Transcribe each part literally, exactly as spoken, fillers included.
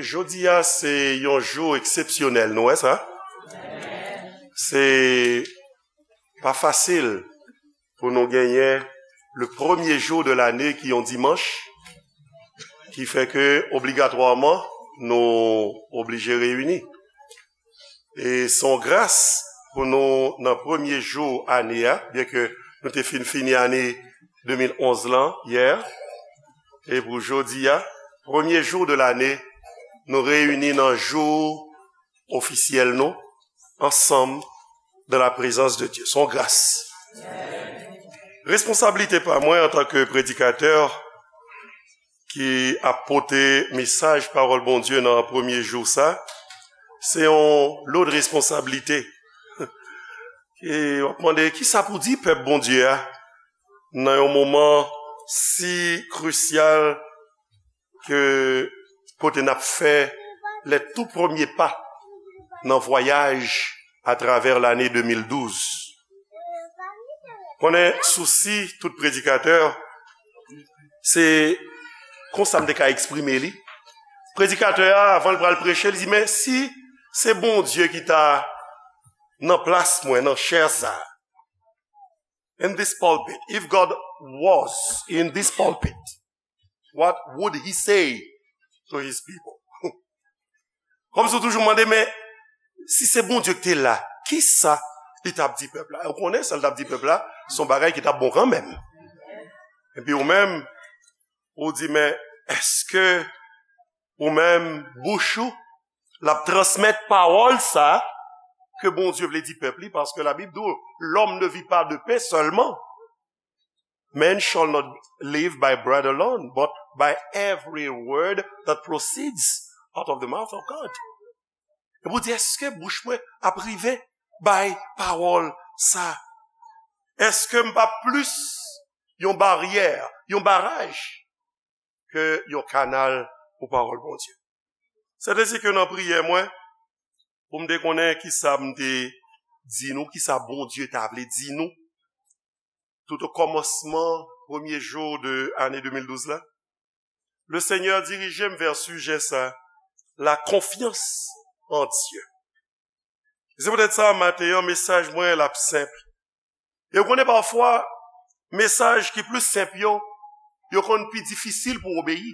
Jodi a, se yon jou eksepsyonèl, nou wè sa? Se pa fasil pou nou genyen le premye jou de lane ki yon dimanch, ki fè ke obligatwaman nou oblije reyini. E se yon gras pou nou nan premye jou ane a, byen ke nou te fin fini ane de mil onz lan yè, e pou jodi a, premye jou de lane, nou reyini nan jou ofisyèl nou, ansanm, dans la présence de Dieu. Se yon gras. Responsablite pa mwen antanke predikatè ki ap pote mesaj pawòl Bondye nan premye jou sa, se yon lòt responsablite. E w ap mande, kisa pou di pèp Bondye a nan yon moman si krisyal ke kote n ap fè les tout premiers pas nan vwayaj atravè lane de mil douz. Konnen sousi tout predikatè, se konsa m te ka eksprime li. Predikatè a, avan l pral preche, li di, men si se Bondye ki ta nan plas mwen, nan chè sa, in this pulpit, if God was in this pulpit, what would he say to his people? Kòmsi w toujou mande, men si se Bondye ki te la, kisa li t ap di pèp la? Ou konnen sa l t ap di pèp la, se yon bagay ki t ap bon kanmenm. Epi ou menm, ou di, men èske ou menm, bouch ou, l ap transmèt pawòl sa ke Bondye vle di pèp li, paske Labib di w, l'homme ne vit pas de pain seulement. Man shall not live by bread alone, but by every word that proceeds out of the mouth of God. E pou di, èske bouch mwen ap rive bay pawòl sa? Èske m pa plis yon baryè, yon baraj ke yon kanal pou pawòl Bondye? Sèten se ke nan priyè mwen, pou m te konnen kisa m te di nou, kisa Bondye ta vle di nou, tout o kòmansman premye jou de ane de mil douz la, Lesenyè dirije m vè sijè sa, la confiance en Dieu. Se poutèt sa, maten an, mesaj mwen l ap senp. E w konnen pafwa, mesaj ki plis senp yo, yo konn pi difisil pou obeyi.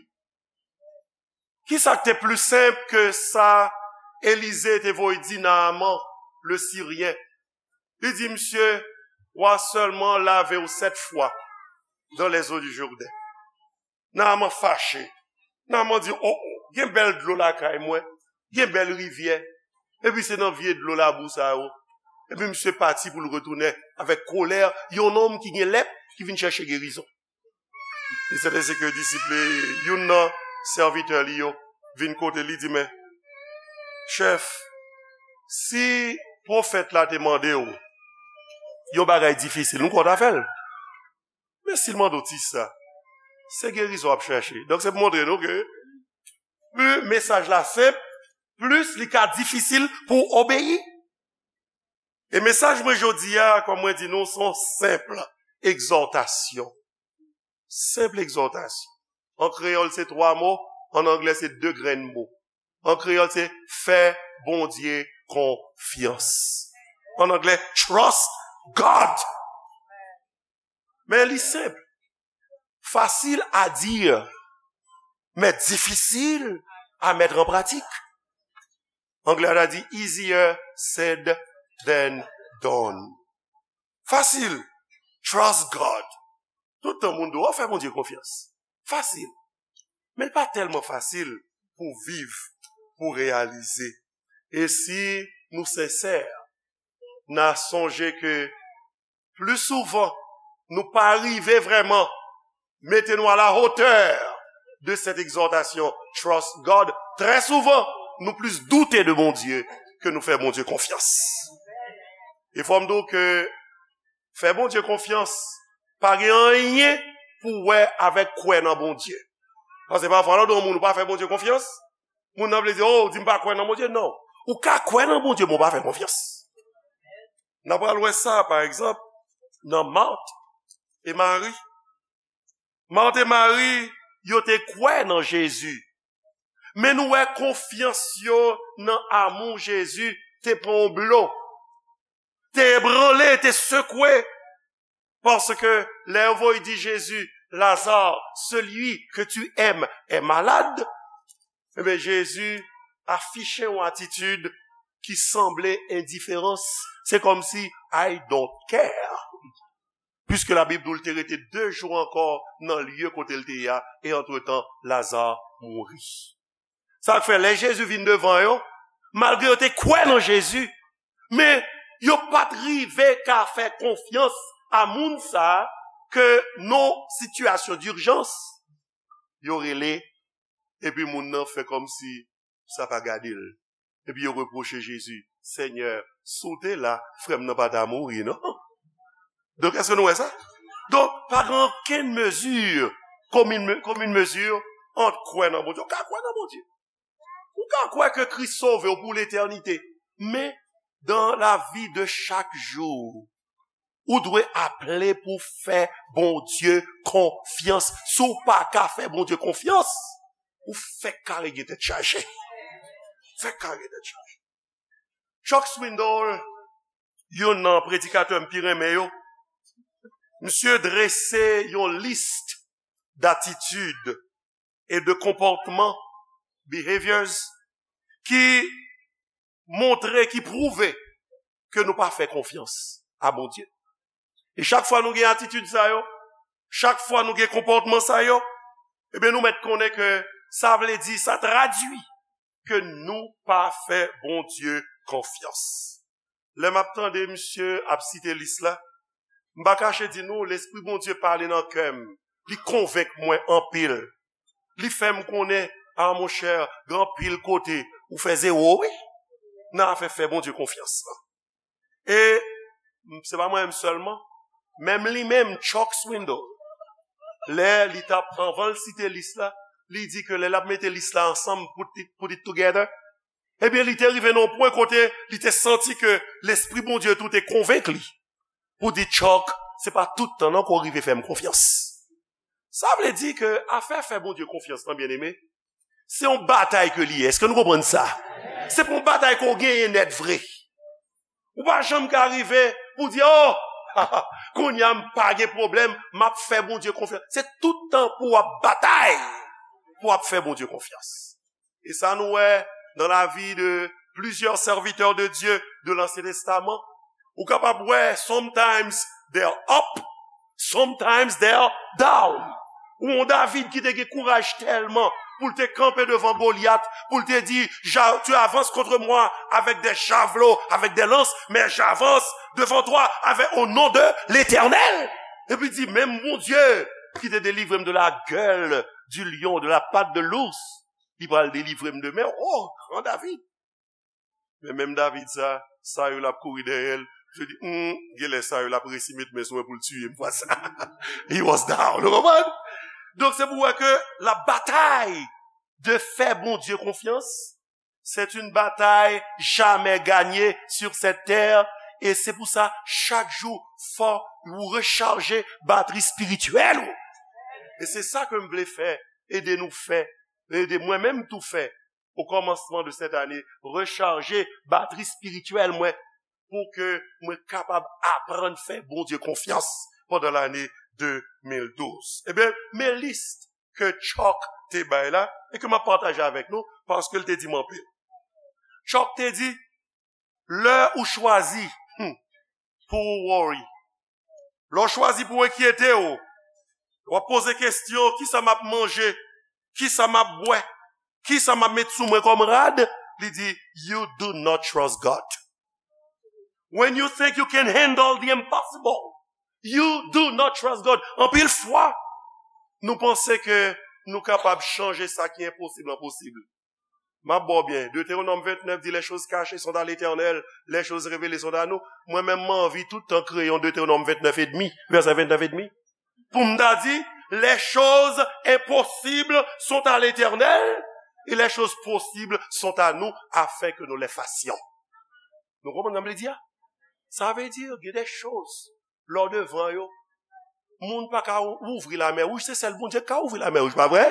Kisa k te pli senp ke sa Elize te voye di Naaman, le Siryen? Li di, misye, w a sèlman lave w sèt fwa dans les eaux du Jourdain. Naaman fache. Naaman di, o, o, gen bèl dlo lakay mwen, gen bèl rivyè, epi se nan vye dlo labou sa yo. Epi misye pati pou l retounen avèk kolè, yon nonm ki gen lèp, ki vin chèche gerizon. E sèten se ke disip li, youn nan sèvitè li yo, vin kote li, di, men, chèf, si pwofèt la te mande w yon bagay difisil, nou kwè w ta fè l. Men si l mande w ti sa, se gerizon w ap chèche. Donk, se pou montre nou ke pli mesaj la senp, plis li ka difisil pou w obeyi. E mesaj mwen jodi a, kòm mwen di nou, se yon senp egzòtasyon. Senp egzòtasyon. An kreyòl, se twa mo, an anglè, se de grenn mo. An kreyòl, se fè Bondye konfyans. An anglè, trust God. Men li senp. Facile à dire, mais difficile à mettre en pratique. Anglè a ta di easier said than done. Fasil. Trust God. Tout tan moun di w, fè Bondye konfyans. Fasil. Men l pa tèlman fasil pou viv, pou reyalize. E si nou sensè, n a sonje ke pli souvan nou pa rive vrèman mete nou à la hauteur de cette exhortation, trust God, trè souvan nou plis doute de Bondye ke nou fè Bondye konfyans. E fò m di w ke fè Bondye konfyans pa gen anyen pou wè avèk kwè nan Bondye. Paske pafwa lè w di yon moun ou pa fè Bondye konfyans, moun nan vle di, o, w di m pa kwè nan Bondye. Non. Ou ka kwè nan Bondye, men w pa fè konfyans. N a pral wè sa, pa egzanp, nan Mat e Mari. Mat e Mari, yo te kwè nan Jezi. Men nou wè konfyans yo nan amou Jezi te pran yon blo, te ebranle, te sekwe. Paske lè yo voye di Jezi, Lazare, celui que tu aimes est malade, ebyen, Jezi afiche yon atitid ki sanble endiferans. Se kòmsi, I don't care. Puiske Labib di w l te rete de jou ankò nan lye kote l te ye a, e antretan, Lazare mouri. Sa k fè, lè Jezi vin devan yo, malgre yo te kwè nan Jezi, men yo pa t rive ka fè konfyans a moun sa a ke nan sitiyasyon dijans, yo rele, epi moun nan fè kòmsi sa pa gade l. Epi yo repwoche Jezi, Senyè, si w te la, frè m nan pa ta mouri, non? Donk, èske nou wè sa? Donk, pa gen okenn mezi, common, common mesure, ant kwè nan Bondye. Ou ka kwè nan Bondye. Ou ka kwè ke Kris sove w pou letènite. Men, dans la vie de chaque jour, ou dwe aple pou fè Bondye konfyans. Si w pa ka fè Bondye konfyans, ou fèk kare gen tèt chaje. Fèk kare gen tèt chaje. Chuck Swindoll, youn nan predikatè m pi renmen yo, misye drese yon lis datitid e de konpòtman, behaviors, ki montre, ki pwouve ke nou pa fè konfyans a Bondye. E chak fwa nou gen atitid sa yo, chak fwa nou gen konpòtman sa yo, ebyen, nou mèt konnen ke sa vle di, sa tradui ke nou pa fè Bondye konfyans. Lè m ap tande misye ap site lis la, m pa kache di nou, Lespri Bondye pale nan kè m. Li konvenk mwen anpil. Li fè m konnen, a monchè, gen anpil kote ou fè zewo, wi, nan afè fè Bondye konfyans lan. E m, se pa mwen menm sèlman, menm li menm, Chuck Swindoll, lè li t ap, anvan l site lis la, li di ke lè l ap mete lis la ansanm, put it, put it together, ebyen, li te rive nan yon pwen kote li te santi ke Lespri Bondye tou te konvenk li pou di, Chuck, se pa tout tan non ke w rive fè m konfyans. Sa vle di ke afè fè Bondye konfyans lan, byeneme, se yon batay ke li ye. Èske nou konprann sa? Se pa yon batay ke w genyen nèt vre. Ou pa janm ka rive pou di, oh, kounye a m pa gen pwoblèm, m ap fè Bondye konfyans. Se tout tan pou w ap batay, pou w ap fè Bondye konfyans. E sa nou wè dans la vie de plusieurs serviteurs de Dieu de l'Ancien Testament. Ou kapab wè, sometimes they're up, sometimes they're down. Ou yon David ki te gen kouraj tèlman pou l te kanpe devan Goliath, pou l te di, Ja-, tu avances contre moi avec des javelots, avec des lances, mais j'avance devant toi avec, au nom de l'Éternel. Epi di, menm Bondye ki te delivre m de la gueule du lion, de la patte de l'ours, li pral delivre m de men w, oh, gran David. Men menm David sa, Saül ap kouri dèyè l. Misye di, hmm, genlè Saül ap resi met men sou mwen pou l tiye m fwa sa. He was down. Ou konprann? Donk, se pou wè ke la batay de fè Bondye konfyans, c'est une bataille jamais gagnée sur cette terre. E se pou sa, chak jou, fò ou rechaje batri espirityèl ou. E se sa ke m vle fè, ede nou fè, ede mwen menm tou fè, o kòmansman de cette année, rechaje batri espirityèl mwen, pou ke mwen kapab aprann fè Bondye konfyans pandan lane de mil douz. Ebyen, men lis ke Chuck te bay la, e ke m ap pataje avèk nou, paske l te di m anpil. Chuck te di, lè ou chwazi, hmm, pou w worry, lè w chwazi pou w enkyete w, w ap poze kesyon, kisa m ap manje, kisa m ap bwè, kisa m ap met sou mwen kòm rad, li di, you do not trust God. When you think you can handle the impossible, you do not trust God. Anpil fwa, nou panse ke nou kapab chanje sa ki enposib an posib. M ap ba w byen. Deutéronome vingt-neuf dit, les choses cachées sont à l'Éternel, les choses révélées sont à nous. Mwen menm, m anvi tout tan kreye yon Deutéronome vingt-neuf et demi, vèsè vennèf edmi, pou m ta di, les choses impossibles sont à l'Éternel et les choses possibles sont à nous, afin que nous les fassions. Nou konprann sa m vle di a? Sa vle di, gen de choz lè w devan yo, moun pa ka ou-, ouvri lamè wouj, se sèl Bondye ki ka ouvri lamè wouj, pa vre?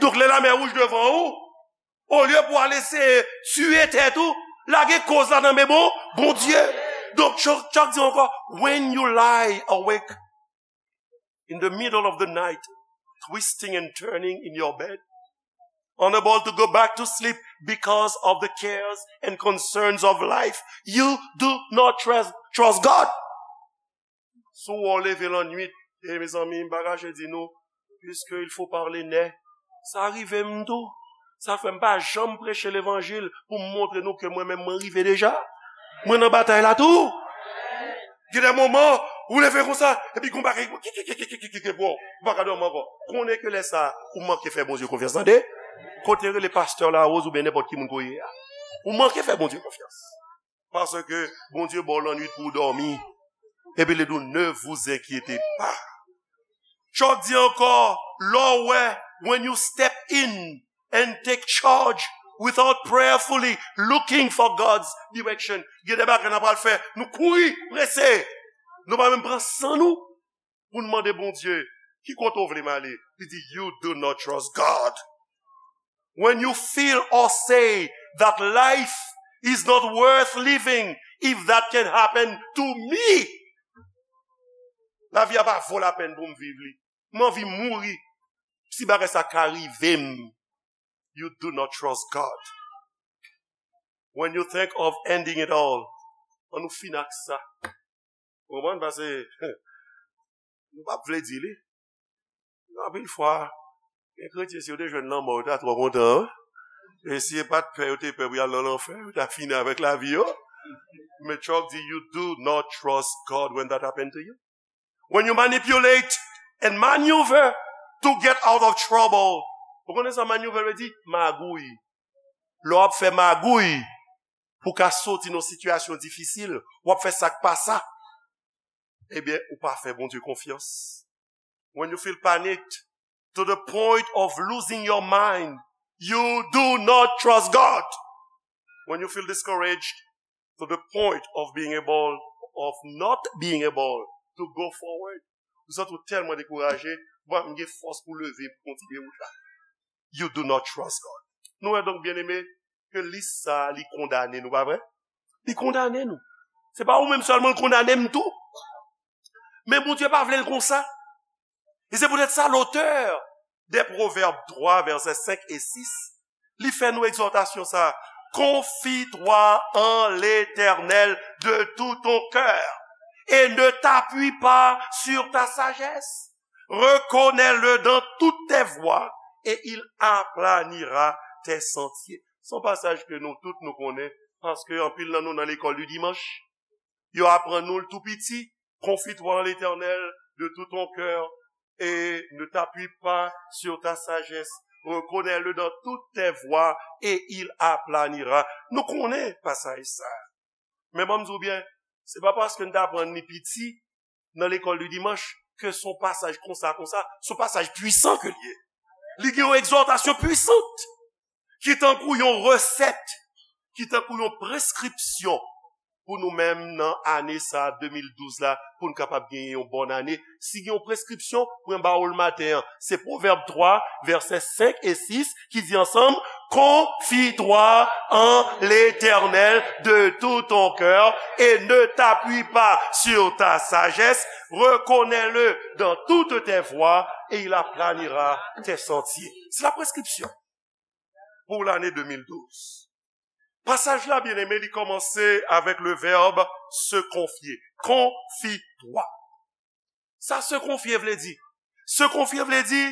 Donk, lè lamè wouj devan ou, Olye pou al eseye tiye tèt ou, lage koz la nan men bon, Bondye. Donk, Chuck, Chuck di ankò, when you lie awake in the middle of the night, twisting and turning in your bed, unable to go back to sleep because of the cares and concerns of life, you do not trust, trust God. Si w leve lannwit, e mezanmi, m pa kache di nou, puisque il faut parler net, sa rive m tou. Sa fè m pa janm preche levanjil pou m montre nou ke mwen menm mwen rive deja. Mwen nan batay la tou. Gen de moman, ou leve konsa, epi gon bagay, bon, ou pa ka dòmi ankò. Konnen ke lè sa, ou manke fè Bondye konfyans, tande? Kote rele pastè Larose oubyen nenpòt ki moun ke w ye a. Ou manke fè Bondye konfyans. Paske Bondye ba w lannwit pou w dòmi. Epi li di w, ne vous inquiétez pas. Chuck di ankò, lè w wè, when you step in and take charge without prayerfully looking for God's direction. Gen de bagay n ap pral fè, nou kouri, prese. Nou pa menm pran san nou pou n mande Bondye, ki kote w vle m ale? Li di, you do not trust God. When you feel or say that life is not worth living if that can happen to me. Lavi a pa vo lapèn pou m viv li. M anvi mouri si bagay sa ka rive m. You do not trust God. When you think of ending it all, an nou fin ak sa. Ou konprann? Paske nou p ap vle di li. Anpil fwa, gen kretyen, si yo te jwenn lanmò, yo ta twò kontan, wi. E si e pa t pè yo te pè pou y al nan lanfè, yo ta fini avèk lavi yo. Men Chuck di, you do not trust God when that happen to you. When you manipulate and maneuver to get out of trouble. Ou konnen sa maneuver vle di? Magouy. Lè w ap fè magouy pou w ka soti nan sitiyasyon difisil, w ap fè sa k pa sa, ebyen, ou pa fè Bondye konfyans. When you feel panicked to the point of losing your mind, you do not trust God. When you feel discouraged to the point of being able, of not being able to go forward. Ou santi w tèlman dekouraje, ou pa menm gen fòs pou leve, pou kontinye wout la. You do not trust God. Nou wè donk, byeneme, ke lis sa a, li kondane nou, pa vre? Li kondane nou. Se pa ou menm sèlman l kondane m tou. Men Bondye pa vle l konsa. E se poutèt sa, lotè de Pwovèb twa, vèsè senk e sis, li fè nou egzòtasyon sa, confie-toi en l'Éternel de tout ton cœur et ne t'appuie pas sur ta sagesse. Reconnais-le dans toutes tes voies et il aplanira tes sentiers. Se yon pasaj ke nou tout nou konnen, paske anpil nan nou nan lekòl di dimanch, yo aprann nou l tou piti, confie-toi en l'Éternel de tout ton cœur et ne t'appuie pas sur ta sagesse. Reconnais-le dans toutes tes voies et il aplanira. Nou konnen pasaj sa. Men ban m di w byen, se pa paske n t aprann li piti nan lekòl de dimanch ke se yon pasaj konsa, konsa, se yon pasaj pwisan ke l ye. Li gen yon egzòtasyon pwisan ki tankou yon resèt, ki tankou yon preskripsyon pou nou menm nan ane sa a, de mil douz la, pou n kapab genyen yon bòn ane. Si gen yon preskripsyon, mwen ba w l maten an. Se Pwovèb twa, vèsè senk e sis, ki di ansanm, confie-toi en l'Éternel de tout ton cœur et ne t'appuie pas sur ta sagesse. Reconnais-le dans toutes tes voies et il aplanira tes sentiers. Se la preskripsyon pou lane de mil douz. Pasaj la, byeneme, li kòmanse avèk le vèb se konfye. Confie-toi. Sa se konfye vle di? Se konfye vle di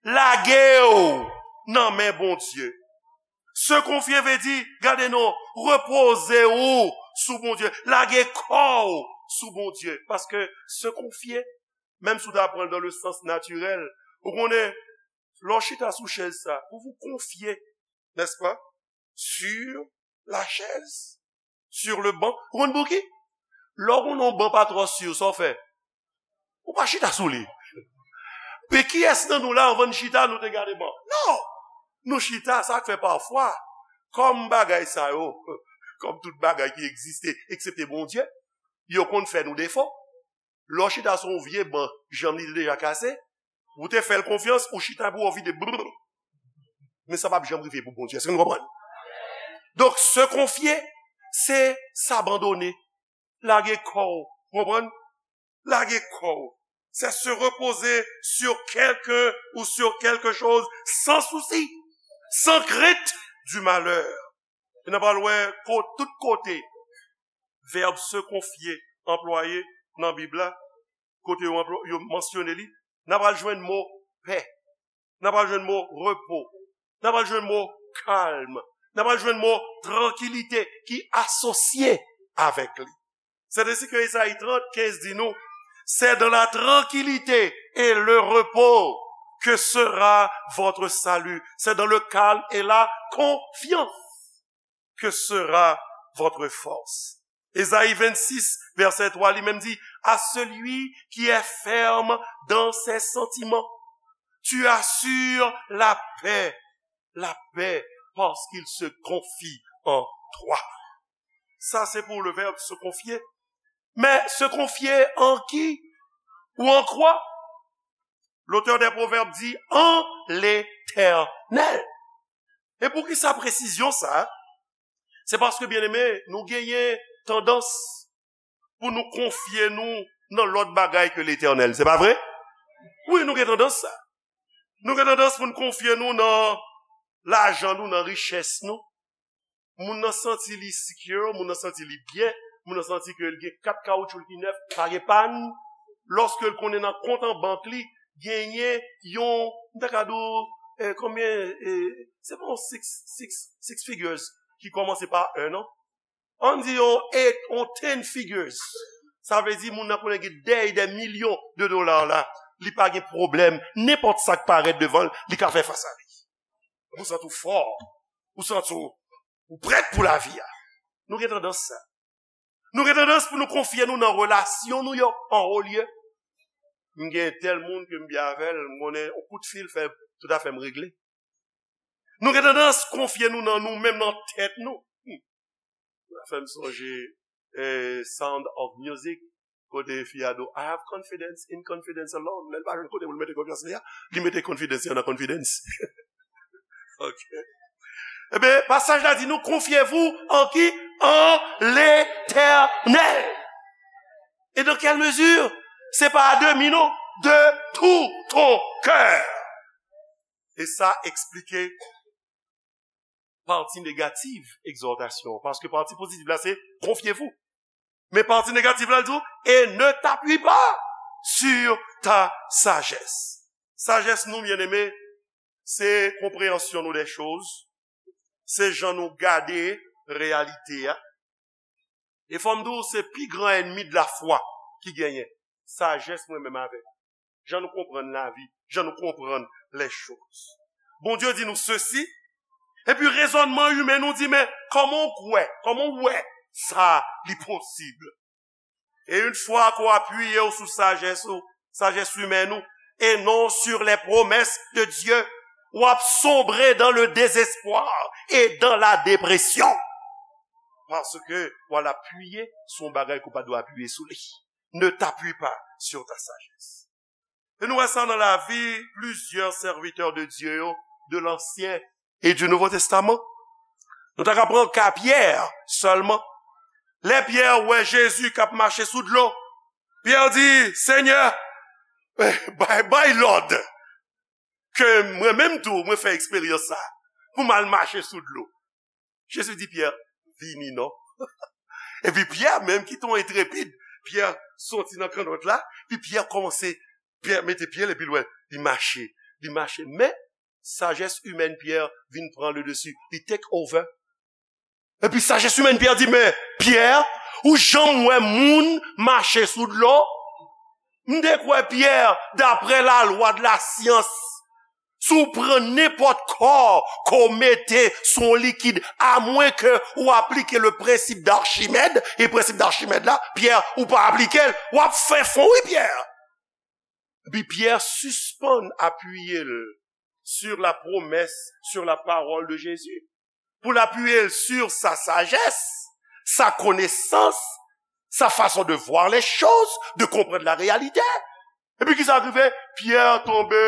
lage w nan men Bondye. Se konfye vle di, gade non, repoze w sou Bondye, lage kò w sou Bondye. Paske se konfye, menm si w ta pran l dans le sens naturel, ou konnen, lè w chita sou chèz sa, pou w konfye, n'est-ce pas, sur la chaise, sur le banc. Ou konn pou ki? Lè w konn yon ban pa twò si, sa w fè? Ou pa chita sou li. Men kiyès nan nou la, anvan n chita, nou te gade ban? Non! Nou chita, sa k fè pafwa, kòm bagay sa yo, kòm tout bagay ki egziste, eksepte Bondye, yo konn fè nou defo. Lè w chita sou yon vye ban, janm li te deja kase, ou te fè l konfyans, ou chita pou w vide, brrr. Men sa p ap janm rive pou Bondye. Èske nou konprann? Donk, se konfye, se s'abandonner. Lage kò w. Konprann? Lage kò w. C'est se reposer sur quelqu'un ou sur quelque chose sans souci, sans crainte du malheur. E n ap al wè ko-, tout kote vèb se konfye anplwaye nan Bib la, kote yo, anplwa-, yo mansyone li, n ap al jwenn mo pè, n ap al jwenn mo repo, n ap al jwenn mo kalm, n ap al jwenn mo trankilite ki asosye avèk li. C'est ainsi que Esaïe trente, quinze di nou, c'est dans la tranquillité et le repos que sera votre salut. C'est dans le calme et la confiance que sera votre force. Esaïe vingt-six, verset trois, li menm di, à celui qui est ferme dans ses sentiments, tu assures la paix, la paix, parce qu'il se confie en toi. Sa se pou le verbe se confier. Men se konfye an ki ou an kwa? L'auteur des Proverbes di, an Letènèl. E poukisa presizyon sa? Se paske, byeneme, nou genyen tandans pou nou konfye nou nan lòt bagay ke Letènèl. Se pa vre? Wi, nou gen tandans sa. Nou gen tandans pou nou konfye nou nan lajan nou, nan richès nou. Moun nan santi li secure, moun nan santi li byen, moun nan santi ke l gen kat kawotchou l ki nèf, pa gen pàn. Lòske l konnen nan kont an bank li, genyen yon, m ta ka di w, eh, konbyen, eh, se pa yon six, six, six figures ki kòmanse pa un, non? Ann di yon eight, yon ten figures. Sa vle di moun nan konnen gen dèy de milyon de dola la, li pa gen pwoblèm. Nenpòt sa k parèt devan l, li ka fè fas a li. Ou santi w fò, ou santi w, ou prèt pou lavi a. Nou gen tandans sa. Nou gen tandans pou nou konfye nou nan relasyon nou yo, an wo lye. M gen tèl moun ke m byen avè l, m konnen yon kout fil fè tout afè m regle. Nou gen tandans konfye nou nan nou menm, nan tèt nou. Hmm. Sa fè m sonje, eh, Sound of Music, kote fi a di, "I have confidence in confidence alone." Lè l pa jwenn kote pou l mete konfyans li a, li mete confidence li nan confidence. Ok. Ebyen, pasaj la di nou, confiez-vous en qui? En l'Éternel. Et dans quelle mesure? Se pa à demi, non. De tout ton cœur. E sa eksplike pati negatif egzòtasyon an. Paske pati pozitif la, se confiez-vous. Men pati negatif la, l di w, et ne t'appuie pas sur ta sagesse. Sajès nou, byeneme, se konpreyansyon nou de choz, se jan nou gade reyalite a. E fò m di w, se pi gran ènmi de la foi ki genyen. Sajès mwen menm avè w. Jan nou konprann lavi, jan nou konprann les choses. Bondye di nou sesi, epi rezònman imen nou di, men kòman w kwè, kòman w wè sa li posib? E yon fwa ke w apiye w sou sajès ou, sajès imèn ou, et non sur les promesses de Dieu, w ap sombre dans le désespoir et dans la dépression. Paske w al apiye sou yon bagay ke w pa dwe apiye sou li. Ne t'appuie pas sur ta sagesse. E nou wè sa nan lavi plizyè sèvitè de Dye yo, de l'Ancien et du Nouveau Testament. Nou ta ka pran ka Pyè sèlman. Lè Pyè wè Jezi k ap mache sou dlo, Pyè di, Senyè, eh, bay, bay lòd ke mwen menm tou, mwen fè eksperyans sa, pou m al mache sou dlo. Jezi di Pyè, vini non. Epi Pyè menm ki te yon entrepid, Pyè soti nan kannòt la, epi Pyè kòmanse, Pyè mete pye l epi l wè, li mache, li mache. Men, sajès imèn Pyè vin pran le dessus, li take over. Epi sajès imèn Pyè di, men, Pyè, ou janm wè moun mache sou dlo? M te kwè, Pyè, daprè lalwa de la syans, si w pran nenpòt kò ke w mete sou yon likid, amwen ke w aplike le prensip d'Archimède, e prensip d'Archimède la, Pyè, ou pa aplike l, w ap fè fon, wi, Pyè. Epi Pyè sispann apiye l sur la promesse, sur la parole de Jésus. Pou l apiye l sur sa sajès, sa konesans, sa fason de voir les choses, de comprendre la réalité. Epi kisa k rive? Pyè tonbe,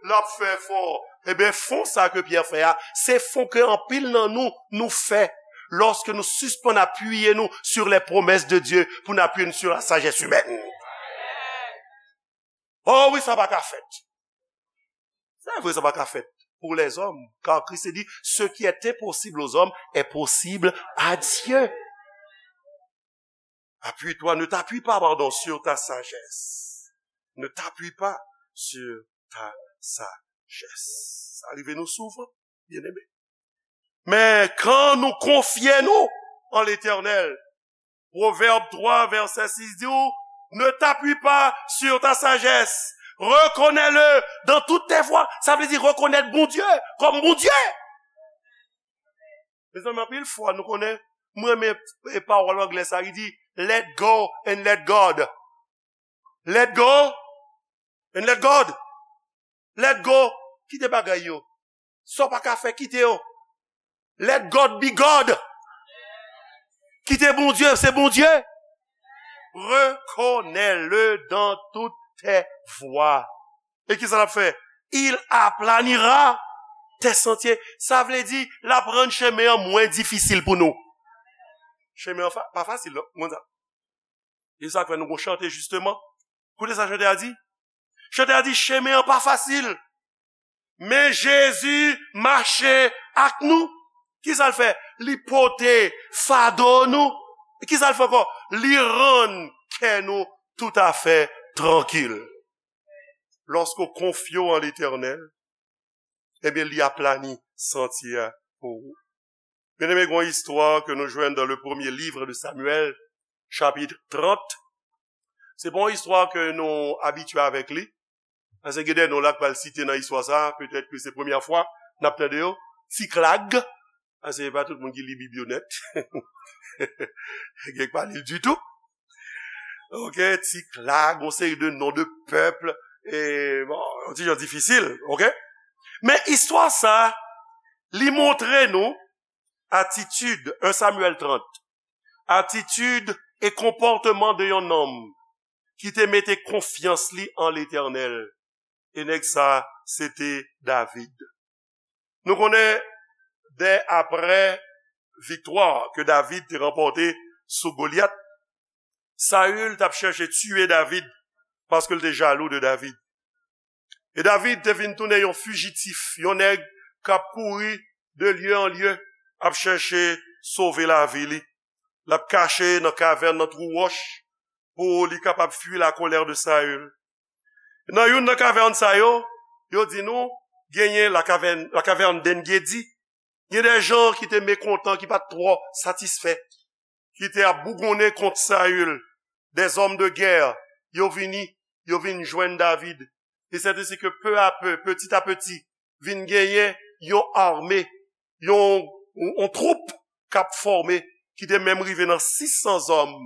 l ap fè fon. Ebyen, fon sa ke Pyè fè a, se fon ke anpil nan nou, nou fè lòske nou sispann apiye nou sur les promesses de Dieu pou n apiye nou sur la sagesse humaine. Oh wi, sa pa ka fèt. Se vre, sa pa ka fèt pour les hommes, car Christ dit, ce qui est impossible aux hommes est possible à Dieu. Appuie-toi, ne t'appuie pas, pardon, sur ta sagesse. Ne t'appuie pas sur ta sagesse. Sa rive nou souvan, byeneme. Men kan nou konfye nou an Letènèl, Pwovèb twa, vèsè sis di w, ne t'appuie pas sur ta sagesse. Reconnais-le dans toutes tes voies. Sa vle di rekonèt Bondye kòm Bondye. Mezanmi, anpil fwa nou konnen, mwen renmen e pawòl anglè sa, li di, let go and let God. Let go and let God. Let go. Kite bagay yo. Sa w pa ka fè, kite yo. Let God be God. Kite Bondye, se Bondye. Reconnais-le dans toutes tes voies. E kisa l ap fè? Il aplanira tes sentiers. Sa vle di, l ap rann chemen an mwen difisil pou nou. Chemen an fa- pa fasil, non? Konn sa. E sa k fè nou gon chante, jisteman. Koute sa chante a di. Chante a di, chemen an pa fasil. Men Jezi mache ak nou. Kisa l fè? Li pote fado nou. Kisa l fè ankò? Li rann kè nou toutafè trankil. Lòske w konfye w an Letènèl, ebyen, li aplani santye a pou ou. Byeneme, gen yon istwa ke nou jwenn dans le premier livre de Samuel, chapitre trente. Se pa yon istwa ke nou abitye avèk li. Paske gen de non la k pral site nan istwa sa, petèt ke se premyè fwa n ap tande yo. Siklag, paske se pa tout moun ki li Bib yo nèt. Gen k pa li l ditou. Ok, Siklag, yon seri de non de pèp, e, bon, yon ti jan difisil, ok? Men istwa sa, li montre nou atitid, un Samuel trente, atitid e konpòtman de yon nonm ki te mete konfyans li an Letènèl. E nèg sa, se te David. Nou konnen, dè apre viktwa ke David te ranpòte sou Golyat, Saül t ap chèche tiye David paske l te jalou de David. E David te vin tounen yon fijitif, yon nèg k ap kouri de lye an lye, ap chèche sove lavi li. L ap kache nan kavèn, nan twou wòch, pou li kapab fui la colère de Saül. Nan youn nan kavèn sa yo, yo di nou, genyen la caverne, la caverne d'En-Gedi. Gen de jan ki te mekontan, ki pa t twò satisfè, ki te ap bougonnen kont Saül. Des hommes de guerre, yo vini, yo vin jwenn David. E sèt ensi ke peu à peu, petit à petit, vin genyen yon ame, yon, yon, yon twoup k ap fòme, ki te menm rive nan sis san zòm,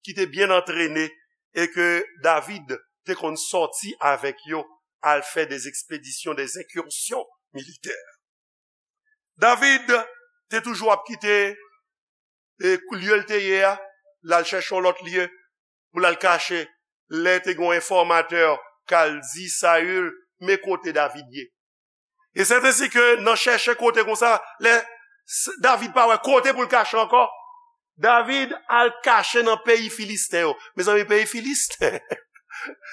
ki te byen antrene, e ke David te konn sòti avèk yo, al fè des expéditions, des incursions militaires. David te toujou ap kite e lye l te ye a, l al chèche yon lòt lye pou l al kache. Lè te gen yon enfòmatè k al di Saül, men kote David ye. E sèt ensi ke nan chèche kote konsa, lè S- David pa wè kote pou l kache ankò, David al kache nan peyi Filisten yo. Mezanmi, peyi Filisten,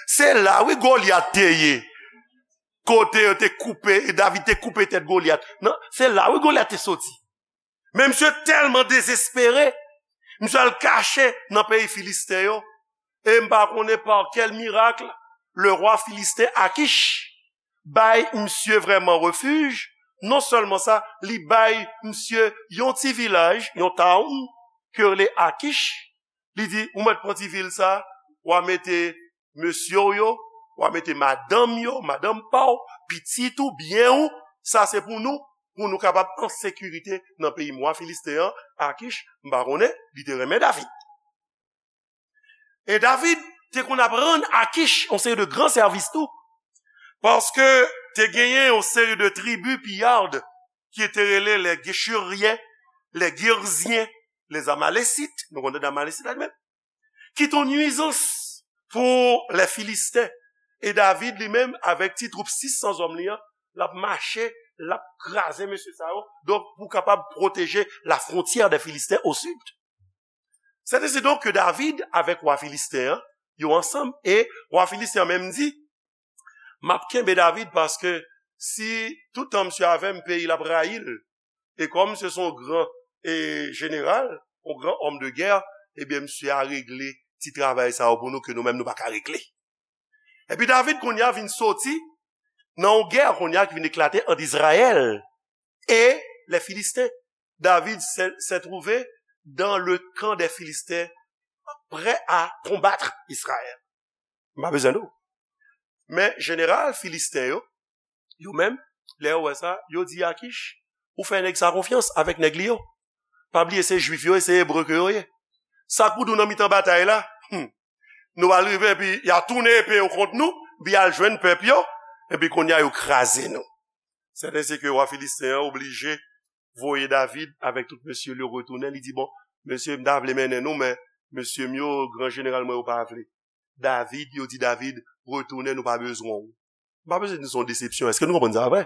se la, wi, Golyat te ye. Kote yo te koupe, David te koupe tèt Golyat. Non, se la, wi, Golyat te soti. Men misye tèlman dezespere, misye al kache nan peyi Filisten yo. E m pa konnen pa kèl mirak, le rwa filisten Akish bay misye vrèman refij. Non sèlman sa, li bay misye yon ti vilaj, yon town, ke yo rele Akish. Li di, ou mèt pran ti vil sa, w a mete mesye w yo, w a mete madanm yo, madanm pa w, pitit ou, byen ou, sa se pou nou, pou nou kapab an sekirite nan peyi m. Wa Filisten an, Akish, m pa konnen, li te renmen David. E David te konn ap rann Akish yon seri de gran sèvis tou, paske te genyen yon seri de tribi piyad ki te rele les Géchuriens, les Girziens, les Amalécites, nou konnen Amalécite la li menm, ki te yon nwizans pou lè Filisten. E David li menm, avèk ti twoup sis san zòm li an, l ap mache, l ap kraze mesye sa yo. Donk, pou kapab pwoteje la frontière des Philistins au sud. C'est ainsi donc que David, avec wa filisten an, yo ansanm, e wa filisten an menm di, m ap kenbe David paske si toutan misye avè m, peyi l ap rayi l. E kòm misye se yon gran e, jeneral, yon gran homme de guerre, ebyen, misye a regle ti travay sa yo pou nou ke nou menm nou pa ka regle. Epi David kounye a vin soti nan yon gè kounye a ki vin eklate ant Izrayèl e les Philistins. David s'est s'est trouvé dans le camp des Philistins, prêt à combattre Israël. M pa bezwen di w. Men jeneral filisten yo, yo menm, lè yo wè sa, yo di Akish, ou fè nèg sa konfyans avèk nèg li yo. Pa bliye se jwif yo, e se ebre ke yo ye. Sa k pou di w nan mitan batay la? Hmm. Nou al rive epi y a tounen epe yo kont nou, epi y al jwenn pèp yo, epi kounye a yo kraze nou. C'est ainsi que wa filisten an oblije voye David avèk tout mesye l yo retounen. Li di, bon, mesye, m ta vle mennen nou, men mesye m yo, gran jeneral mwen yo pa vle. David, yo di David, retounen, nou pa bezwen w. M pa bezwen di nou se yon desepsyon. Èske nou konprann sa vre?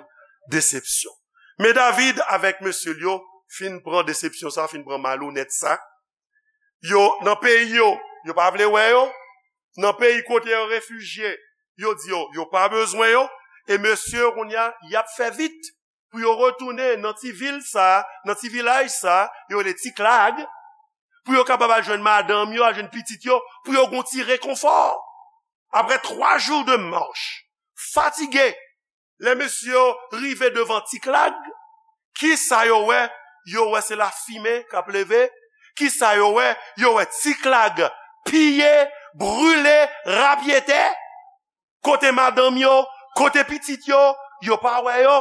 Desepsyon. Men David avèk mesye l yo fin pran desepsyon sa, fin pran malonèt sa. Yo, nan peyi yo, yo pa vle wè yo. Nan peyi kote yo refijye, yo di yo, yo pa bezwen yo. E mesye yo kounye a, y ap fè vit pou yo retounen nan ti vil sa, nan ti vilaj sa, yo rele Tiklag, pou yo kapab al jwenn madanm yo, al jwenn pitit yo, pou yo gon ti rekonfò. Après trois jours de marche, fatige, lè mesye yo rive devan Tiklag, kisa yo wè? Yo wè se lafimen k ap leve. Kisa yo wè? Yo wè Tiklag piye, brile, rapyetè. Kote madanm yo, kote pitit yo, yo pa wè yo.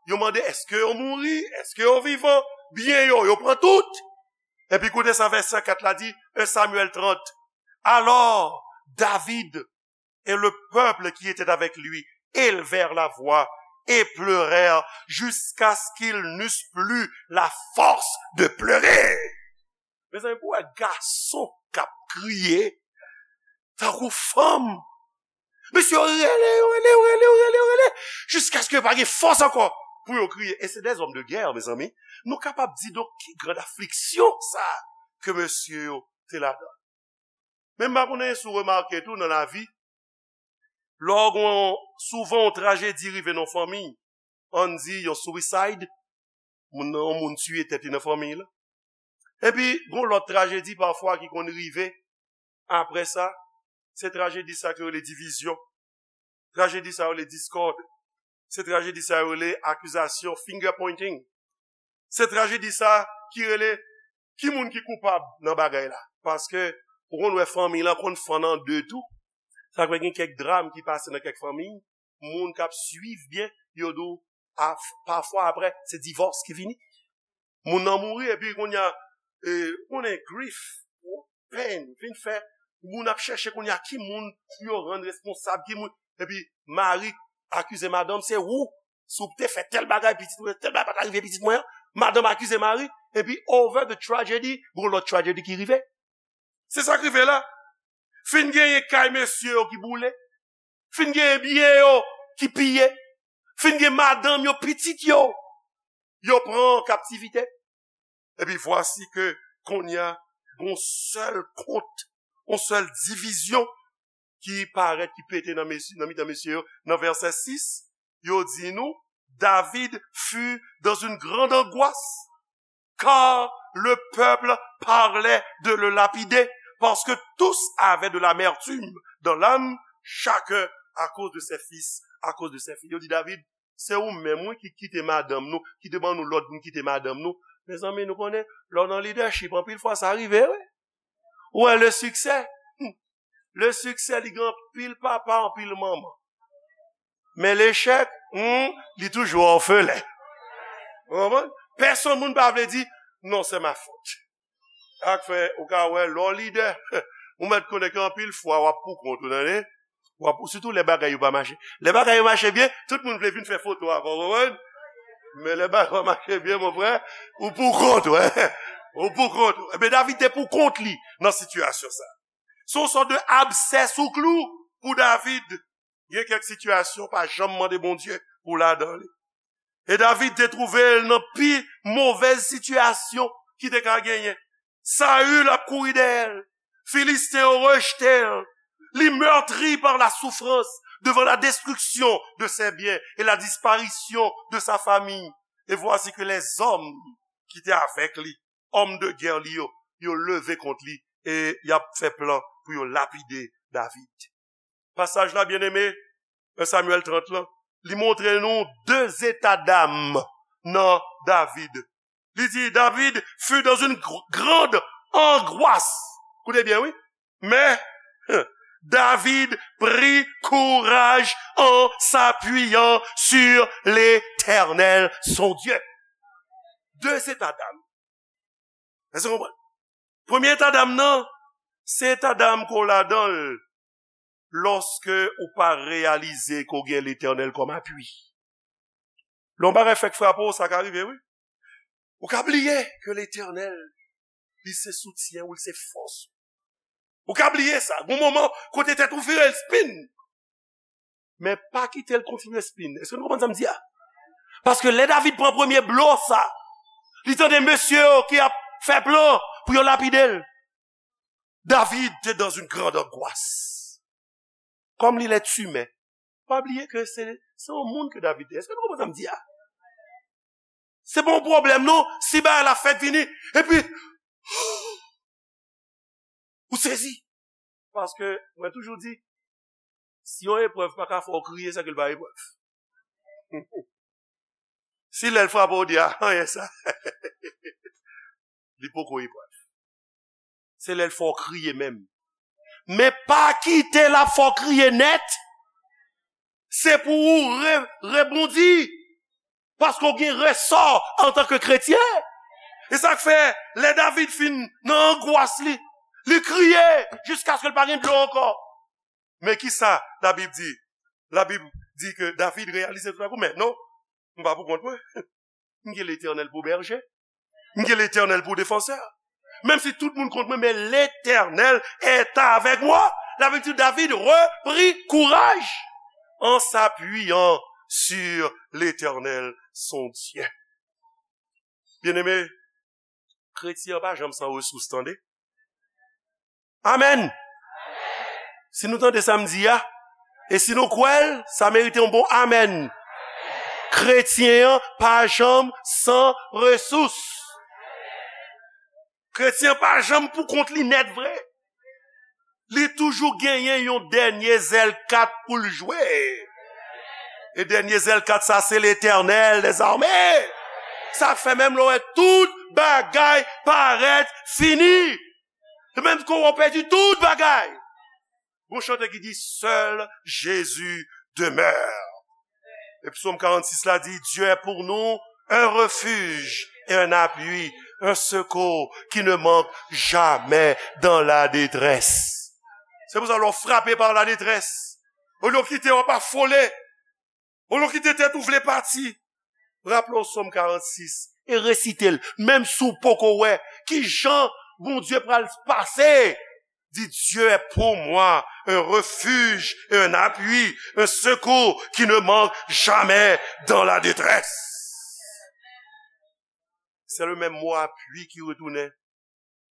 Yo mande, èske yo mouri? Èske yo vivan? Byen yo, yo pran tout. Epi koute sa vèsè kat la di, un Samuel trente. Alors, David et le peuple qui était avec lui élevèrent la voix et pleurèrent jusqu'à ce qu'ils n'eussent plus la force de pleurer. Mezanmi, pou wè gason k ap kriye tankou fanm. Mesye yo rele, yo rele, yo rele, yo rele, yo rele, jiskaske pa gen fòs ankò pou yo kriye. E se des hommes de guerre, mezanmi. Nou kapab di, donk, ki grand afliksyon sa ke mesye yo te ladan. Men m pa konnen si w remake tou nan lavi, lè w gen souvan yon trajedi rive nan fanmi, ann di yon suicide, moun nan, yon moun tiye tèt li nan fanmi la. Epi, gen lòt trajedi pafwa ki konn rive apre sa, se trajedi sa ki rele divizyon. Trajedi sa yo rele diskòd. Se trajedi sa yo rele akizasyon, finger pointing. Se trajedi sa ki rele ki moun ki koupab nan bagay la. Paske ou konn wè fanmi lan konn fann an de tou. Sa k fè gen kèk dram ki pase nan kèk fanmi, moun k ap swiv byen, yo di w, pafwa apre, se divòs ki vini. Moun nan mouri, epi kounye a, e, konnen grif, pèn, vin fè, moun ap chèche kounye a ki moun pou yo rann responsab, ki moun, epi mari akize madanm, se ou, si w te fè tèl bagay, pitit mwen, tèl bagay pa ta rive pitit mwen an, madanm akize mari, epi over the tragedy, gon lòt tragedy ki rive. Se sa k rive la. Fin genyen kay mesye yo ki boule. Fin genyen byen yo ki piye. Fin gen madanm yo, pitit yo, yo pran an kaptivite. Epi vwasi ke kounye a, gon sèl kont, yon sèl divizyon ki parèt, ki pete nan mesye, nan mitan mesye yo. Nan vèsè sis, yo di nou, David fut dans une grande angoisse, car le peuple parlait de le lapider, parce que tous avaient de l'amertume dans l'âme, chacun à cause de ses fils, à cause de ses filles. Yo di David, se ou menm, wi, ki kite madanm nou, ki te ban nou lòd pou n kite madanm nou. Mezanmi, nou konnen, lè w nan lidèchip, anpil fwa sa rive, wi. Ou wè, le succès, hmm, le succès, li gen anpil papa, anpil manman. Men lechèk, hmm, li toujou òfelen. Ou konprann? Pèsonn moun pa vle di, non, c'est ma faute. Sa k fè, ou ka wè, lè w lidè, ou mèt konnen ke anpil fwa, w ap pou kont ou, tande? W ap pou, sitou lè bagay yo pa mache. Lè bagay yo mache byen, tout moun vle vin fè foto avè w, ou konprann? Men lè bagay yo mache byen, mon frè, ou pou kont ou, hein? Ou pou kont ou. Ebyen, David te pou kont li nan sitiyasyon sa. Se yon sòt de absè sou klou pou David. Gen kèk sitiyasyon, pa janm mande Bondye pou ladan li. E David te twouve l nan pi movèz sitiyasyon ki te ka genyen. Saül ap kouri dèyè l. Filisten yo rejte l. Li meurtri par la souffrance devant la destruction de ses biens et la disparition de sa famille. Et voici que les hommes ki te avèk li, òm de gè li yo, yo leve kont li e y ap fè plan pou yo lapide David. Pasaj la, byeneme, en Samyèl trant lan, li montre nou de zeta dam nan David. Li di, David fut dans une gr- grande angoisse. Koute byen, wi. Mais David prit courage en s'appuyant sur l'Éternel, son Dieu. De zeta dam. Èske w konprann? Premye eta dam nan, se eta dam ke w ladan l lòske ou pa reyalize ke w gen Letènèl kòm apui. Lè yon bagay fèk frape w, sa ka rive, wi. Ou ka bliye ke Letènèl, li se soutyen ou, li se fòs ou. Ou ka bliye sa. Gon moman, kote tèt ou vire l spin. Men pa kite l kontinye spin. Èske nou konprann sa m di a? Paske lè David pran premye blo sa, li tande mesye yo ki ap fè plan pou yo lapide l. David te dans une grande angoisse. Kòm li lèt imen, pa bliye ke se, se yon moun ke David te. Èske nou konprann sa m di a? Se pa yon pwoblèm, non. Si bagay la fèk vini, epi, ou sezi. Paske, mwen toujou di, si yon eprèv pa ka fè w kriye, se ke l pa eprèv. Si lè l frape w, w di, a, anyen sa. Li poko eprèv. Se lè l fè w kriye menm. Men pa kite l ap fè w kriye nèt. Se pou ou re, rebondi. Paske w gen resò antanke kretyen. E sa k fè, lè David fin nan angwas li, li kriye jiskaske l pa gen dlo ankò. Men ki sa Labib di? Labib di ke David reyalize toutakou, men non, m pa pou kont mwen. M gen Letènèl pou bèje. M gen Letènèl pou defansè. Menm si tout moun kont mwen, men Letènèl est avec moi. Labib di David reprit courage en s'appuyant sur l'Éternel, son Dieu. Byeneme, kretyen an pa janm san resous, tande. Amèn. Si nou tande sa m di a, e si nou kwè l, sa merite yon bon amèn. Kretyen an pa janm san resous. Kretyen an pa janm pou kont li nèt vre. Li toujou genyen yon dènye zèl kat pou l jwe. E dènye zèl kat sa, se Letènèl dèzame. Sa k fè menm lè w wè tout bagay parèt fini. E menm kou w pèdi tout bagay. Gon chante ki di, seul Jésus demeure. E Psaume quarante-six la di, Dieu est pour nous un refuge et un appui, un secours qui ne manque jamais dans la détresse. Se pou sa lè w frape pa ladétrès, olye w kite w ap afole, olye w kite tèt ou vle pati, raple w Sòm karannsis e resite l, menm si w poko wè kijan Bondye pral pase. Dis, Dieu est pour moi un refuge et un appui, un secours qui ne manque jamais dans la détresse. C'est le même mot appui ki retounen.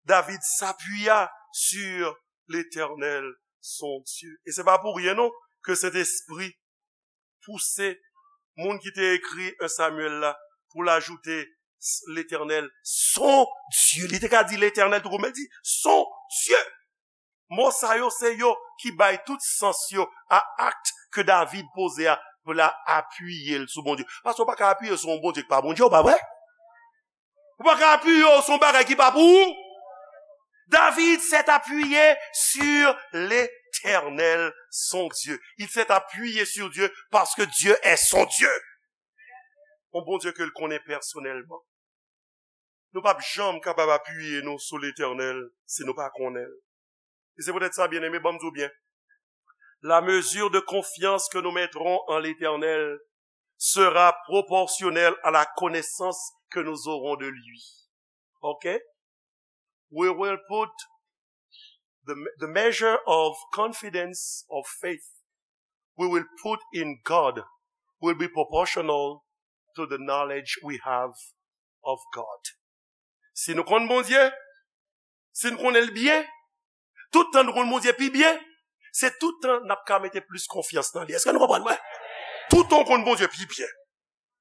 David s'appuya sur l'Éternel, son Dieu. E se pa pou ryen non ke Sentespri pouse moun ki te ekri en Samyèl la pou l ajoute Letènèl, son Dye. Li te ka di Letènèl tou kou, men l di son Dye. Mo sa yo, se yo ki bay tout sans yo a akt ke David poze a pou l apiye l sou Bondye. Paske w pa ka apiye sou yon Bondye ki pa Bondye w, pa vre? Ou pa ka apiye w sou yon bagay ki pa pou ou. David s'est appuyé sur l'Éternel, son Dieu. Il s'est appuyé sur Dieu parce que Dieu est son Dieu. Yon Bondye ke l konnen pèsonèlman. Nou p ap janm kapab apiye nou sou Letènèl si nou pa konnen l. E se poutèt sa, byeneme, ban m di w byen. La mesure de confiance que nous mettrons en l'Éternel sera proportionnelle à la connaissance que nous aurons de lui. OK? We will put the, the measure of confidence, of faith, we will put in God will be proportional to the knowledge we have of God. Si nou konn Bondye, si nou konnen l byen, tout tan nou konn Bondye pi byen, se tout tan n ap ka mete plis konfyans nan li. Èske nou konprann mwen? Tout tan w konn Bondye pi byen,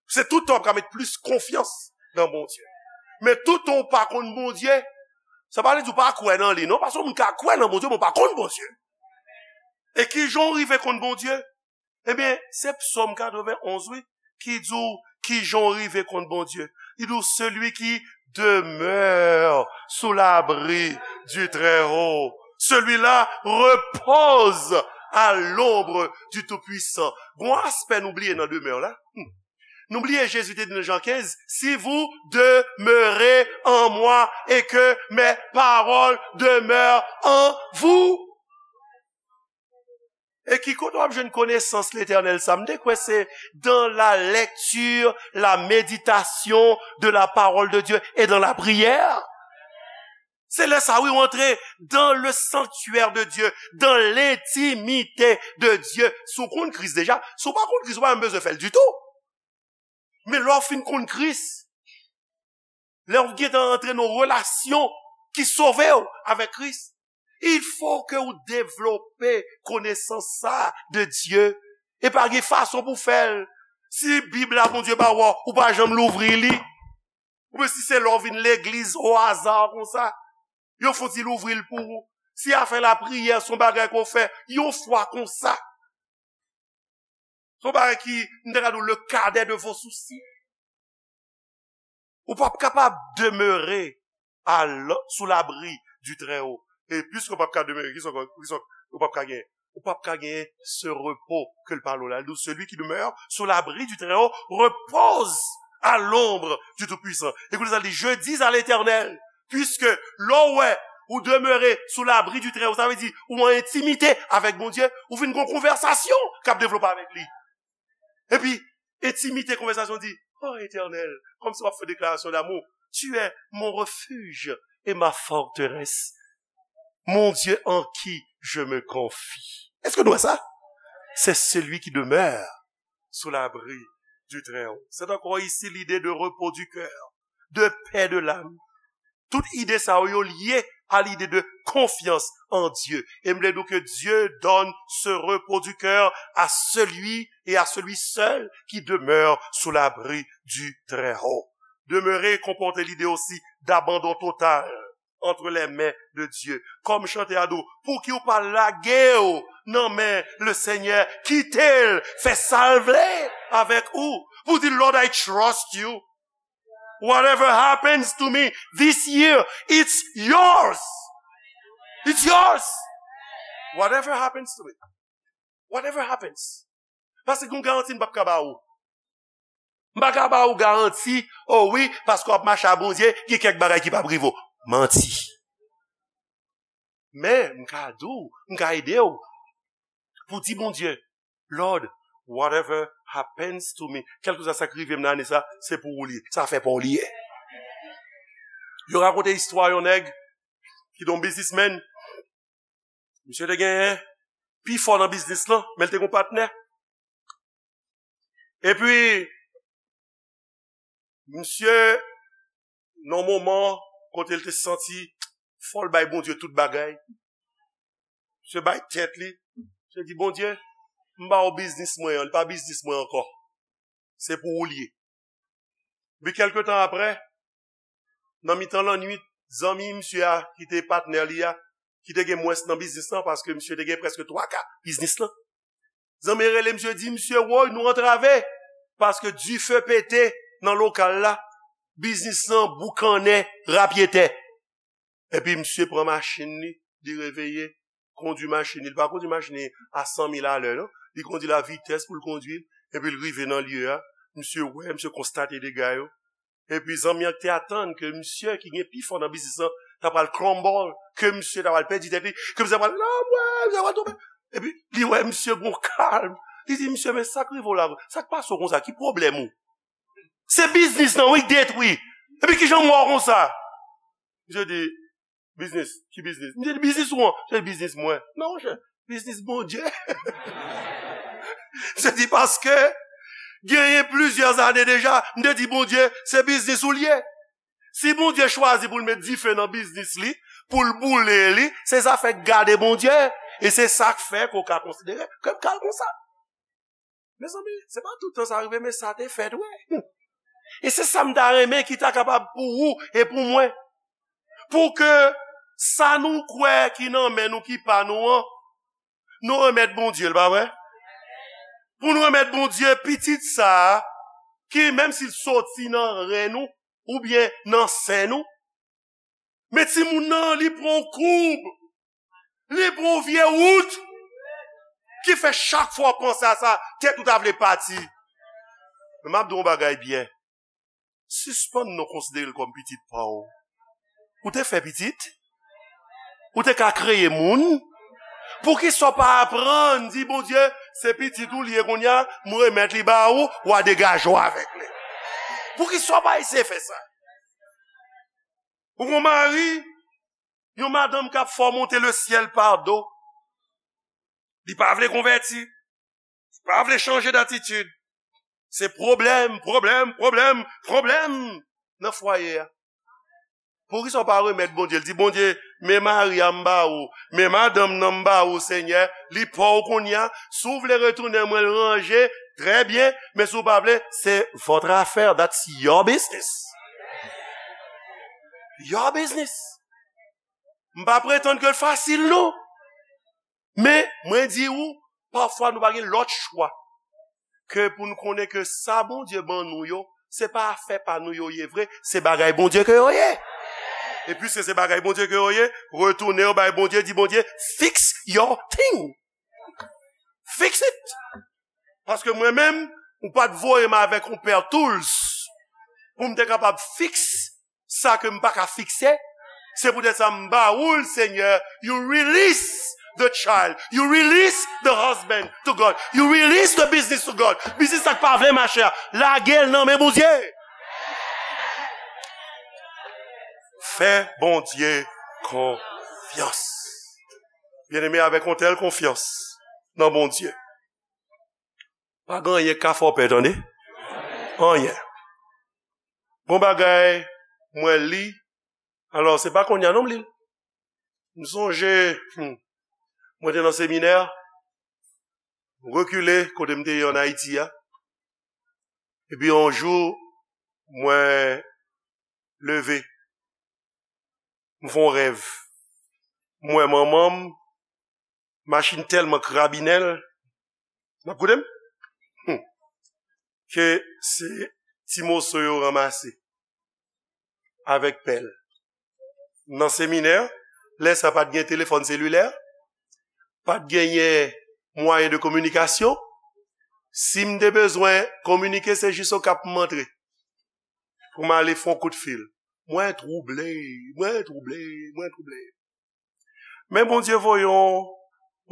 se tout tan w ap ka met plis konfyans nan Bondye. Men tout tan w pa konn Bondye, sa pa vle di w pa kwè nan li, non, paske yon moun ka kwè nan Bondye, men w pa konn Bondye. E ki jan w rive konn Bondye? Ebyen, se Psaume quatre-vingt-onze, wi, ki di w ki jan w rive konn Bondye. Li di w, celui qui demeure sous l'abri du Très-Haut, celui-là repose à l'ombre du Tout-Puissant. Gon aspè nou bliye nan demè la. Hmm. Nou bliye Jezi te di nan Jan kenz, si vous demeurez en moi et que mes paroles demeurent en vous. E ki kote w ap jwenn konesans Letènèl sa? M te kwè se dans la lecture, la méditation de la parole de Dieu et dans la prière. Se lè sa, wi, w antre dans le sanctuaire de Dieu, dans l'intimité de Dieu. Si w konn Kris deja, si w pa konn Kris, ou pa menm bezwen fè l ditou. Men lè w fin konn Kris, lè w gentan antre nan relasyon ki sove w avèk Kris, il faut que ou devlope konesans sa de Dieu. E pa gen fason pou fè l. Si Bib la Bondye ba w, ou pa janm louvri li. Oubyen si se lè w vin legliz o aza konsa, yo fouti louvri l pou ou. Si afè lapriyè se yon bagay ke w fè yon fwa konsa, se yon bagay ki, m ta ka di w, le cadet de vos soucis. Ou p ap kapab demere à l-, sous l'abri du Très-Haut. E piske w p ap ka demere, ki sa w, ki sa w p ap ka genyen? Ou p ap ka genyen ce repos ke l pale w la. Li di w, celui qui demeure sous l'abri du Très-Haut repose à l'ombre du Tout-Puissant. Ekoute sa, li di, je dis à l'Éternel, puisque lè w wè ou demere sous l'abri du Très-Haut, sa vle di ou an entimite avèk Bondye, ou vin gen yon konvèsasyon k ap devlope avèk li. Epi, entimite konvèsasyon di, oh Etènèl, kòmsi w ap fè deklarasyon damou, tu es mon refuge et ma forteresse, mon Dieu en qui je me confie. Èske nou wè sa? C'est celui qui demeure sous l'abri du Très-Haut. C'est encore ici l'idée de repos du cœur, de paix de l'âme. Tout ide sa yo, yo lye à l'idée de confiance en Dieu. E m vle di w ke Dieu donne ce repos du cœur à celui et à celui seul qui demeure sous l'abri du Très-Haut. Demeurer comporte l'idée aussi d'abandon total entre les mains de Dieu. Kòm chante a di w, pouki w pa lage w nan men le Seigneur, kite l fè sa l vle avèk ou. Pou di, Lord, I trust you. Whatever happens to me this year, it's yours. It's yours. Whatever happens to me. Whatever happens. Paske gen yon garanti m p ap ka ba ou. M pa ka ba ou garanti, oh wi, paske w ap mache a Bondye, gen kèk bagay ki p ap rive w. Manti. Men, m ka di w, m ka ede w pou di Bondye, Lord, whatever happens to me, kèlkeswa sa k rive m nan ane sa, se pou ou li ye. Se afè pa w li ye. Yo rakonte istwa yon nèg ki te yon biznismenn. Misye te genyen pi fò nan biznis lan, men l te gen yon patnè. Epi, misye, nan yon moman kote l te santi fò l bay Bondye tout bagay, misye bay tèt li, misye di, Bondye, m ba w biznis mwen an, li pa biznis mwen ankò. Se pou ou li ye. Epi kèlke tan apre, nan mitan lannwit, zanmi misye a, ki te patnè li a, ki te gen mwens nan biznis lan, paske misye te gen prèske twa ka biznis lan. Zanmi rele misye, di misye, woy, nou antrave, paske dife pete nan lokal la, biznis lan boukannen rapyetè. Epi misye pran machin li, li reveye, kondwi machin li. Li pa kondwi machin li a san mil alè, non. Li kondwi l a vitès pou l kondwi l, epi l rive nan lye a. Misye wè, misye konstate dega yo. Epi zanmi an te atann ke misye ki gen pi fò nan biznis lan ta pral crumble, ke misye ta pral pèdi tèt li, ke misye ta pral lanmwè, misye ta pral tonbe. Epi li wè misye gon kalm. Li di, misye, men sa k rive w la, sa k pase w konsa, ki pwoblèm ou? Se biznis lan, wi, k detwi. Epi kijan m wè w konsa? Misye di, biznis, ki biznis? Misye di, biznis ou an? Misye di, biznis mwen. Non, monchè, biznis Bondye. Misye di, paske genyen plizyè ane deja, m te di, Bondye, se biznis ou l ye. Si Bondye chwazi pou l met dife nan biznis li, pou l boule li, se zafè gade Bondye. E se sa k fè ke w ka konsidere ke m ka l konsa. Mezanmi, se pa tout tan sa rive, men sa te fèt, wi. E se sa m ta renmen ki ta kapab pou ou e pou mwen. Pou ke sa nou kwè ki nan men nou, ki pa nou an, nou remèt Bondye l, pa vre? Pou nou remèt Bondye pitit sa a, ki menm si l soti nan ren nou, oubyen nan sen nou, men timoun nan, li pran yon koub, li pran yon vye wout, ki fè chak fwa w panse a sa, tèt ou ta vle pati. Men m ap di w yon bagay byen. Sispann non konsidere l kòm pitit pa w. Ou te fè pitit? Ou te ka kreye moun? Poukisa w pa aprann di Bondye, se pitit ou l ye kounye a, m remèt li ba ou, w a degaje w avèk li? Poukisa w pa eseye fè sa? Ou gon mari, yon madanm k ap fè w monte lesyèl pa do. Li pa vle konvèti. Li pa vle chanje datitid. Se pwoblèm, pwoblèm, pwoblèm, pwoblèm nan fwaye a. Poukisa w pa remèt Bondye? L di, Bondye, men mari a m ba ou, men madanm nan m ba ou, Senyè, li pa w kounye a. Si w vle retounen mwen l ranje, trè byen, men si w pa vle, se votre affaire, that's your business. Your business. M pa pretann ke l fasil, non. Men, mwen di ou, pafwa nou pa gen lòt chwa ke pou n konnen ke sa Bondye ban nou yo, se pa afè pa nou yo ye vre, se bagay Bondye ke yo ye. E piske se bagay Bondye ke yo ye, retounen yo bay Bondye, di Bondye, fix your thing. Fix it. Paske mwen menm, ou pa t voye m avèk yon pè tools pou m te kapab fix sa ke m pa ka fikse. Se poutèt sa m ba ou l, Senyè, you release the child, you release the husband to God, you release the business to God. Biznis sa k pa vle mache a, lage l nan men Bondye. Fè Bondye konfyans. Byeneme, avèk yon tèl konfyans nan Bondye, pa gen anyen k ka fè w pè, tande. Anyen. Gon bagay mwen li, alò, se pa kounye a non m li l. M sonje, hmm, mwen te nan seminè, m rekile kote m te ye ann Ayiti a. Epi yon jou, mwen leve, m fè yon rèv. M wè manman m, machin tèlman krabinen l. N ap koute m? Hmm. Ke se ti moso yo ranmase avèk pèl. Nan seminè, lè sa pa t gen telefòn selilè, pa t genyen mwayen de kominikasyon. Si m te bezwen kominike, se jis Okap m antre pou m ale fè yon kout fil. Mwen twouble, mwen twouble, mwen twouble. Men Bondye voye yon,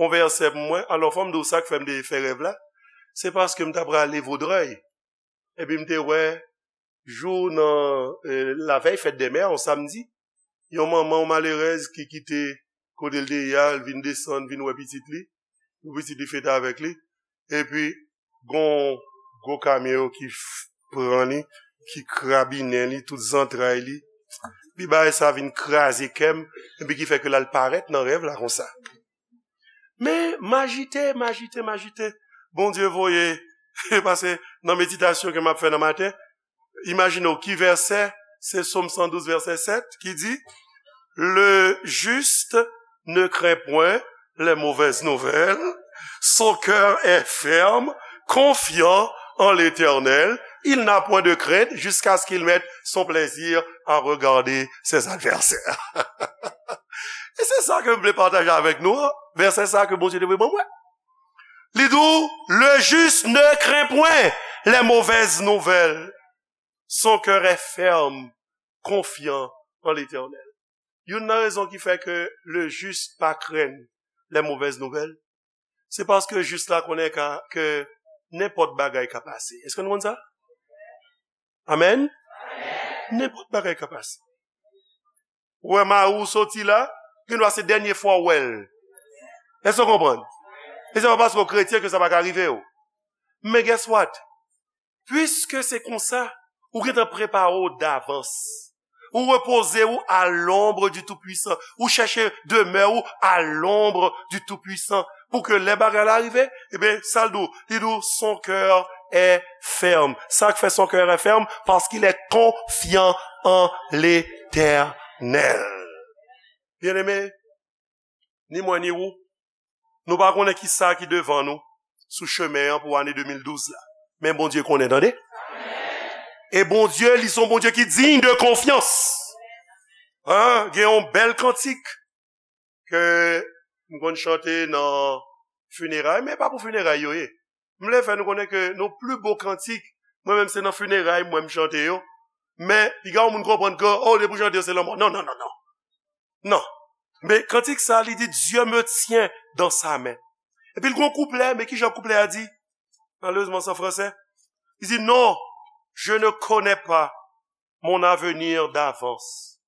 yon vèsè pou mwen. Alò, fò m di w sa k fè m te fè rèv la. Se paske m t aprale Voudrèy. Epi m te wè, jou nan, eh, lavèy fèt dè mè, yon samdi, yon manman, yon malerèz ki kite kote l te ye a, l vin desann, vin wè pitit li, pou pitit li fete avèk li. Epi, gon gwo kamyon ki f-, pran li, ki krabinen li, tout zantray li. Epi bagay sa vin kraze kè m, epi ki fè ke l al parèt nan rèv la konsa. Men, m ajite, m ajite, m ajite. Bondye voye, pase nan meditasyon ke m ap fè nan maten, imajine w ki vèsè, se Sòm san douz, vèsè sèt, ki di, le juste ne craint point les mauvaises nouvelles, son cœur est ferme, confiant en l'Éternel, il n'a point de crainte jusqu'à ce qu'il mette son plaisir à regarder ses adversaires. E se sa ke m vle pataje avèk nou an, vèsè sa ke Bondye te voye ban mwen. Li di w, le juste ne craint point les mauvaises nouvelles. Son cœur est ferme, confiant en l'Éternel. Youn nan rezon ki fè ke le juste pa krenn les mauvaises nouvelles, se paske jis la konnen ka, ke nenpòt bagay ka pase. Èske nou konn sa? Amèn? Nenpòt bagay ka pase. Ou wè mari w soti la, gen dwa se dènye fwa w wè l. Èske w konprann? E se pa paske w kretyen ke sa pa ka rive w. Men guess what? Piske se konsa, ou gentan prepare w davans. Ou repoze ou à l'ombre du Tout-Puissant. Ou chèche demè ou à l'ombre du Tout-Puissant. Pou ke lè bagay la rive, ebyen, sa l di w? Li di w, son cœur est ferme. Sa k fè son cœur est ferme? Parce qu'il est confiant en l'Éternel. Byeneme, ni mwen ni ou, nou pa konnen ki sa ki devan nou sou chemen an pou ane de mil douz la. Men Bondye konnen, tande. E Bondye, li se yon Bondye ki digne de confiance. Hein? Gen yon bèl kantik ke m konn chante nan fineray, men pa pou fineray yo ye. M vle fè nou konnen ke nou pli bo kantik, mwen menm se nan fineray mwen m chante yo. Men, piga yon moun konprann ke, oh, depi w chante yo, se lanmò. Non, non, non, non. Non. Men kantik sa, li di, Dieu me tient dans sa main. Epi l gon kouplè, men ki jan kouplè a di? Malerezman, se an fransè. Li di, non, je ne connais pas mon avenir d'avance,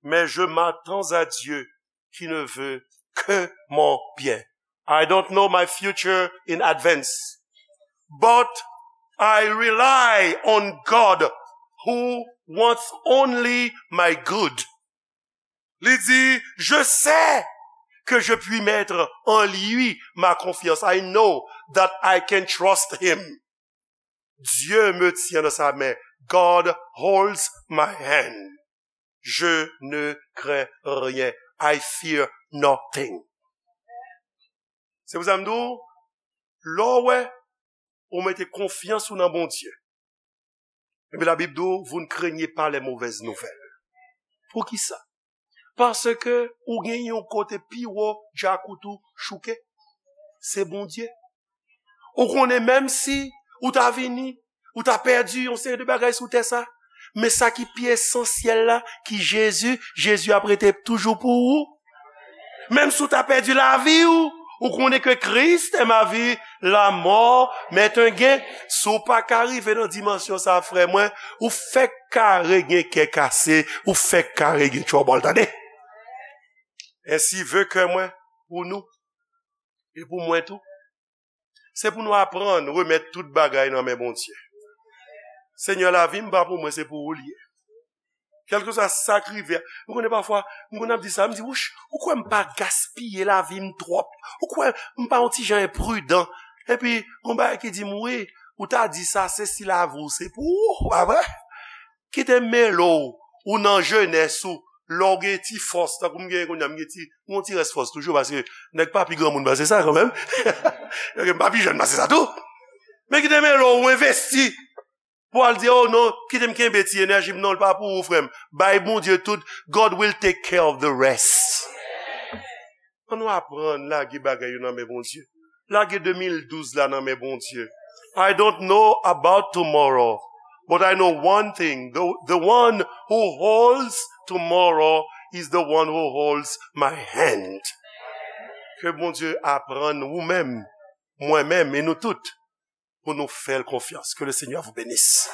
mais je m'attends à Dieu qui ne veut que mon bien. I don't know my future in advance, but I rely on God who wants only my good. Li di, je sais que je puis mettre en lui ma confiance. I know that I can trust him. Dieu me tient dans sa main. God holds my hand. Je ne crains rien. I fear nothing. Se pou sa m di w, lè w wè ou mete konfyans ou nan Bondye, epi Labib di w, vous ne craignez pas les mauvaises nouvelles. Poukisa? Paske ou gen yon kote pi wo djakout ou chouke. Se Bondye. Ou konnen menm si ou ta vini, ou ta pèdi yon seri de bagay sou tè sa, men sa ki pi esansyèl la, ki Jezi, Jezi ap rete toujou pou ou. Menm si w ta pèdi lavi w, ou konnen ke Christ est ma vie, la mort m'est un gain. Si w pa ka rive nan dimansyon sa, frè mwen, ou fèk kare gen kè kase, ou fèk kare gen twòbòl, tande. Ainsi veut kè mwen pou nou, e pou mwen tou. Se pou nou aprann remèt tout bagay nan men Bondye. Senyè, lavi m pa pou mwen, se pou ou l ye. Kèlkeswa sa k rive, m konnen pafwa, m konn ap di sa, m di, wouch, ou kwè m pa gaspiye lavi m twòp? Ou kwè m pa yon ti jan enpridan? Epi, gon bagay ki di m, wi, ou ta di sa, se si lavi w se pou ou, pa vre? Kite m mele w, ou nan jenès ou, lè w gen ti fòs, tankou m genyen kounye a, m gen ti, m gen ti rès fòs toujou, paske nèg pa pi granmoun pase sa kanmenm. Nèg pa pi jèn pase sa tou. Men kite m mele w, ou envesti. Pou al di, oh non, kite m kenbe ti enèji m, non, l pa pou ou, frè m. Bay Bondye tout, God will take care of the rest. Ann nou aprann lage bagay yo nan men Bondye. Lage de mil douz la nan men Bondye. I don't know about tomorrow, but I know one thing. The, the one who holds tomorrow is the one who holds my hand. Ke Bondye aprann ou menm, mwen menm, e nou tout, pou nou fè l konfyans. Que le Seigneur vous bénisse.